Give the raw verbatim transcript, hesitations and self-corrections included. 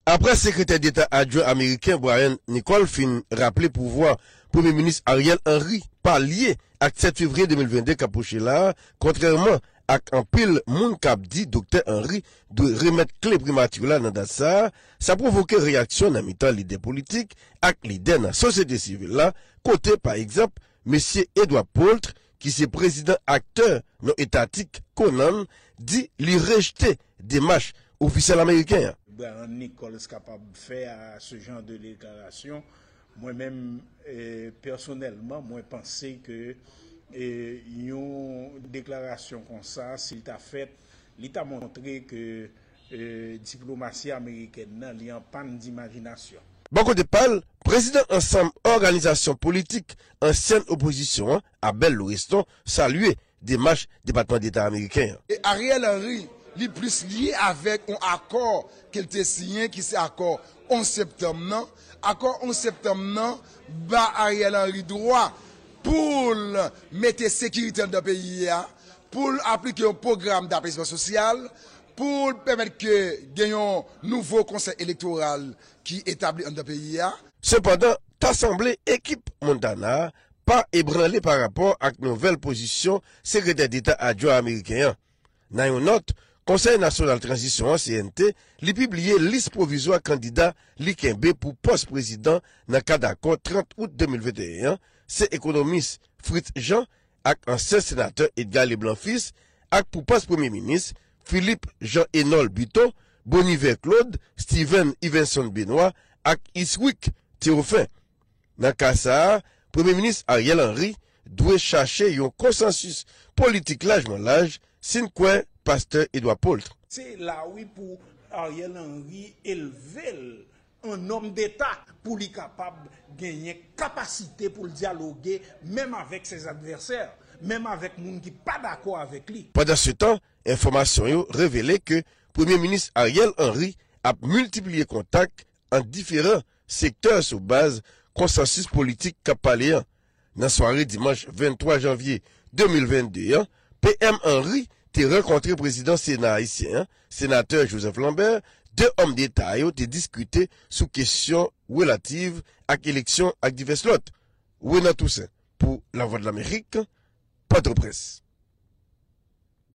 Apre Sekretè Deta Adjwen ameriken Brian Nichols fin raple pouvwa Premye Minis Ariel Henry pa lye ak sèt fevriye de mil vennde k ap pwoche la a, kontrèman ak anpil moun k ap di Doktè Henry dwe remèt kle primati la nan dat sa a, sa pwovoke reyaksyon nan mitan lidè politik ak lidè nan sosyete sivil la, kote, pa egzanp, mesye Edward Poultre, ki se prezidan aktè non etatik Conan, di li rejte demach ofisyèl ameriken an. Brian Nichols kapab fè a ce genre de déclaration. Mwen menm, eh, pèsonèlman, mwen panse ke eh, yon deklarasyon konsa, si l ta fèt, li ta montre ke eh, diplomasi amerikèn nan, li an pàn dimajinasyon. Bò kote pa l, prezidan Ansanm Òganizasyon Politik Ansyèn Opozisyon an, Abel Loreston, salye demach Depatman Deta ameriken an. E Ariel Henry, li plis lye avèk yon akò ke l te siyen, ki se akò onz septanm nan. Akò onz septanm nan ba Ariel Henry dwa pou l mete sekirite anndan peyi a, pou l aplike yon pwogram dapezman sosyal, pou l pèmèt ke gen yon nouvo konsèy elektoral ki etabli anndan peyi a. Sepandan, ta sanble ekip Montana a pa ebranle pa rapò ak nouvèl pozisyon Sekretè Deta Adjwen ameriken an. Nan yon nòt, Konsèy Nasyonal Tranzisyon an, C N T, li pibliye lis pwovizwa kandida li kenbe pou pòs prezidan nan kad akò trant out de mil venteyen an, se ekonomis Fritz Jean ak ansyen senatè Edgar Leblanc Fils, ak pou pòs premye minis, Philippe Jean Enol Buteau, Boniver Claude, Steven Yvenson Benoît ak Iswick Théoffin. Nan ka sa a, Premye Minis Ariel Henry dwe chache yon konsansis politik lajman laj, si n kwè Pastè Edward Poultre. Se la wi pou Ariel Henry elve l an nonm deta pou li kapab genyen kapasite pou l dyaloge menm avèk ses advèsè, menm avèk moun ki pa dakò avèk li. Pandansetan, enfòmasyon yo revele ke Premye Minis Ariel Henry ap miltipliye kontak ant diferan sektè sou baz konsansis politik k ap pale an. Nan sware dimanch venntwa janvye de mil vennde an, P M Henry te rankontre prezidan Sena ayisyen an, senatè Joseph Lambert, de òm deta yo te diskite sou kesyon relativ ak eleksyon ak divès lòt. Renan Toussaint, pou Lavwadlamerik, Pòtoprens.